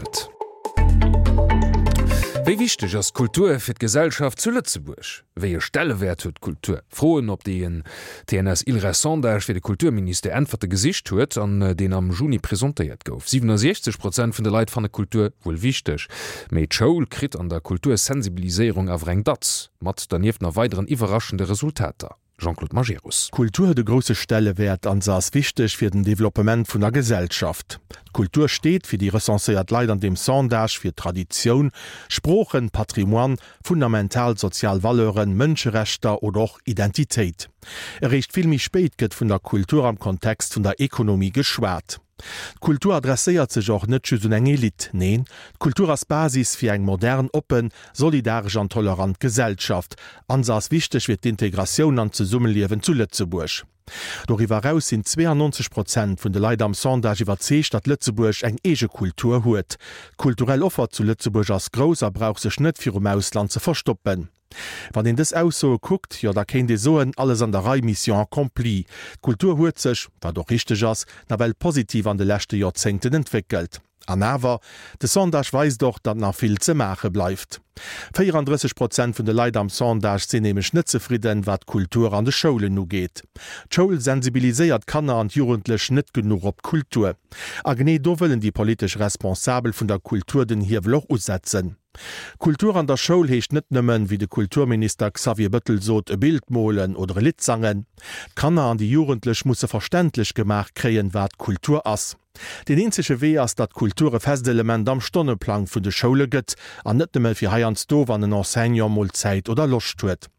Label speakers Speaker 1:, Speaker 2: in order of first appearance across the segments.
Speaker 1: Et. Wéi wichteg ass d'Kultur fir d'Gesellschaft zu Lëtzebuerg? Wéi e Stellewäert huet d'Kultur? Froen, op déi en TNS-ILReS Sondage fir de Kulturministère Äntwerte gesicht huet an deen am Juni presentéiert gouf. 67 Prozent vun de Leit fanne Kultur wuel wichteg, mee d'Schoul kritt an der Kultursensibiliséierung awer eng Datz, mat dernieft nach weideren iwwerraschende Resultater. Jean-Claude Majerus.
Speaker 2: D'Kultur huet e grousse Stellewäert an se ass wichteg fir den Developpement vun der Gesellschaft. D'Kultur steet, fir déi recenséiert Leit an deem Sondage, fir Traditioun, Sproochen, Patrimoine, fundamental sozial Valeuren, Mënscherechter oder och Identitéit. Eréischt vill méi spéit gëtt vun der Kultur am Kontext vun der Ekonomie geschwat. D'Kultur adresséiert sech och net just un eng Elite. Neen, d'Kultur ass d'Basis fir eng modern, oppen, solidaresch an tolerant Gesellschaft. An se ass wichteg fir d'Integratioun an d'Zesummeliewen zu Lëtzebuerg. Doriwwer eraus sinn 92 Prozent vun de Leit am Sondage iwwerzeegt, datt Lëtzebuerg eng eege Kultur huet. D'kulturell Offer zu Lëtzebuerg ass grouss a brauch sech net virum Ausland ze verstoppen. Wann een dës Aussoe kuckt, jo da kéint ee soen, alles an der Rei, Mission accomplie. D'Kultur huet sech, wat och richteg ass, nawell positiv an de leschte Joerzéngten entwéckelt. An awer, de Sondage weist och, datt nach vill ze maache bleift. 34 Prozent vun de Leit am Sondage sinn nämlech net zefridden, wat d'Kultur an de Schoulen ugeet. D'Schoul sensibiliséiert d'Kanner an d'Jugendlech net genuch op d'Kultur. A genee do wëllen déi politesch Responsabel vun der Kultur den Hiewel och usetzen. Kultur an der Schoul heescht net nëmmen, wéi de Kulturminister Xavier Bëttel sot, e Bild molen oder e Lidd sangen. D'Kanner an déi Jugendlech musse verständlech gemaach kréien, wat Kultur ass. Deen eenzege Wee ass, datt Kultur e fest Element am Stonneplang vun de Schoule gëtt, an net nëmme fir heiansdo, wann en Enseignant mol Zäit oder Loscht huet.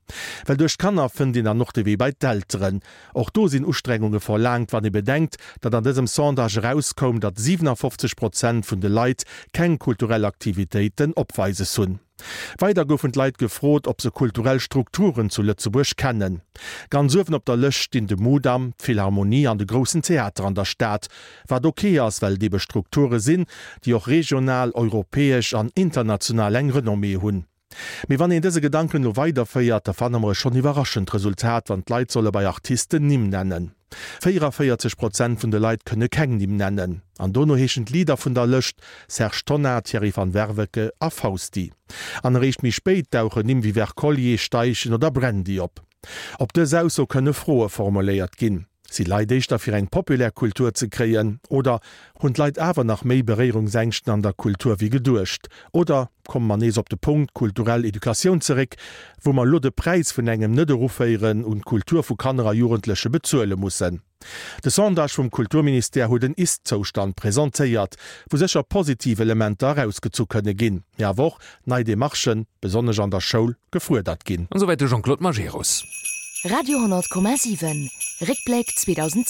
Speaker 2: Well duerch d'Kanner fënnt een dann och de Wee bei d'Elteren. Och do sinn Ustrengunge verlaangt, wann ee bedenkt, datt an dësem Sondage erauskoum, datt 57 Prozent vun de Leit keng kulturell Aktivitéiten opweises hunn. Weider goufen d'Leit gefrot, ob se kulturell Strukturen zu Lëtzebuerg kennen. Ganz uewen op der Lëscht stinn de Mudam, d'Philharmonie an de Groussen Theater an der Stad, wat ok ass, well et ebe Strukture sinn, déi och regional, europäesch an international eng Renommée hunn. Mee wann een dëse Gedanken elo weiderféiert, da fanne mer e schonn iwwerraschend Resultat, wann d'Leit solle bei Artisten Nimm nennen. 44 Prozent vun de Leit kënne keng Nimm nennen. An dono heeschen d'Leader vun der Lëscht Serge Tonnar, Thierry van Werveke a Fausti. An eréischt méi spéit dauchen Nimm wéi Wercollier, Steichen oder Brandy op. Op dës Ausso kënne Froe formuléiert ginn. Si Leit éischter fir eng populär Kultur ze kréien? Oder hunn d'Leit awer nach méi Beréierungsängschten an der Kultur wéi geduecht? Oder komme mer nees op de Punkt kulturell Educatioun zeréck, wou mer elo de Präis vun engem Net-Eruféieren un d'Kultur vu Kanner a Jugendleche bezuele mussen? De Sondage vum Kulturministère huet en Ist-Zoustand presentéiert, wou sécher positiv Elementer erausgezu kënne ginn, mee awer och nei Demarchen, besonnesch an der Schoul, gefuerdert ginn.
Speaker 1: An esouwäit de Jean-Claude Majerus.
Speaker 3: Radio 10,7 Réckbléck 2017.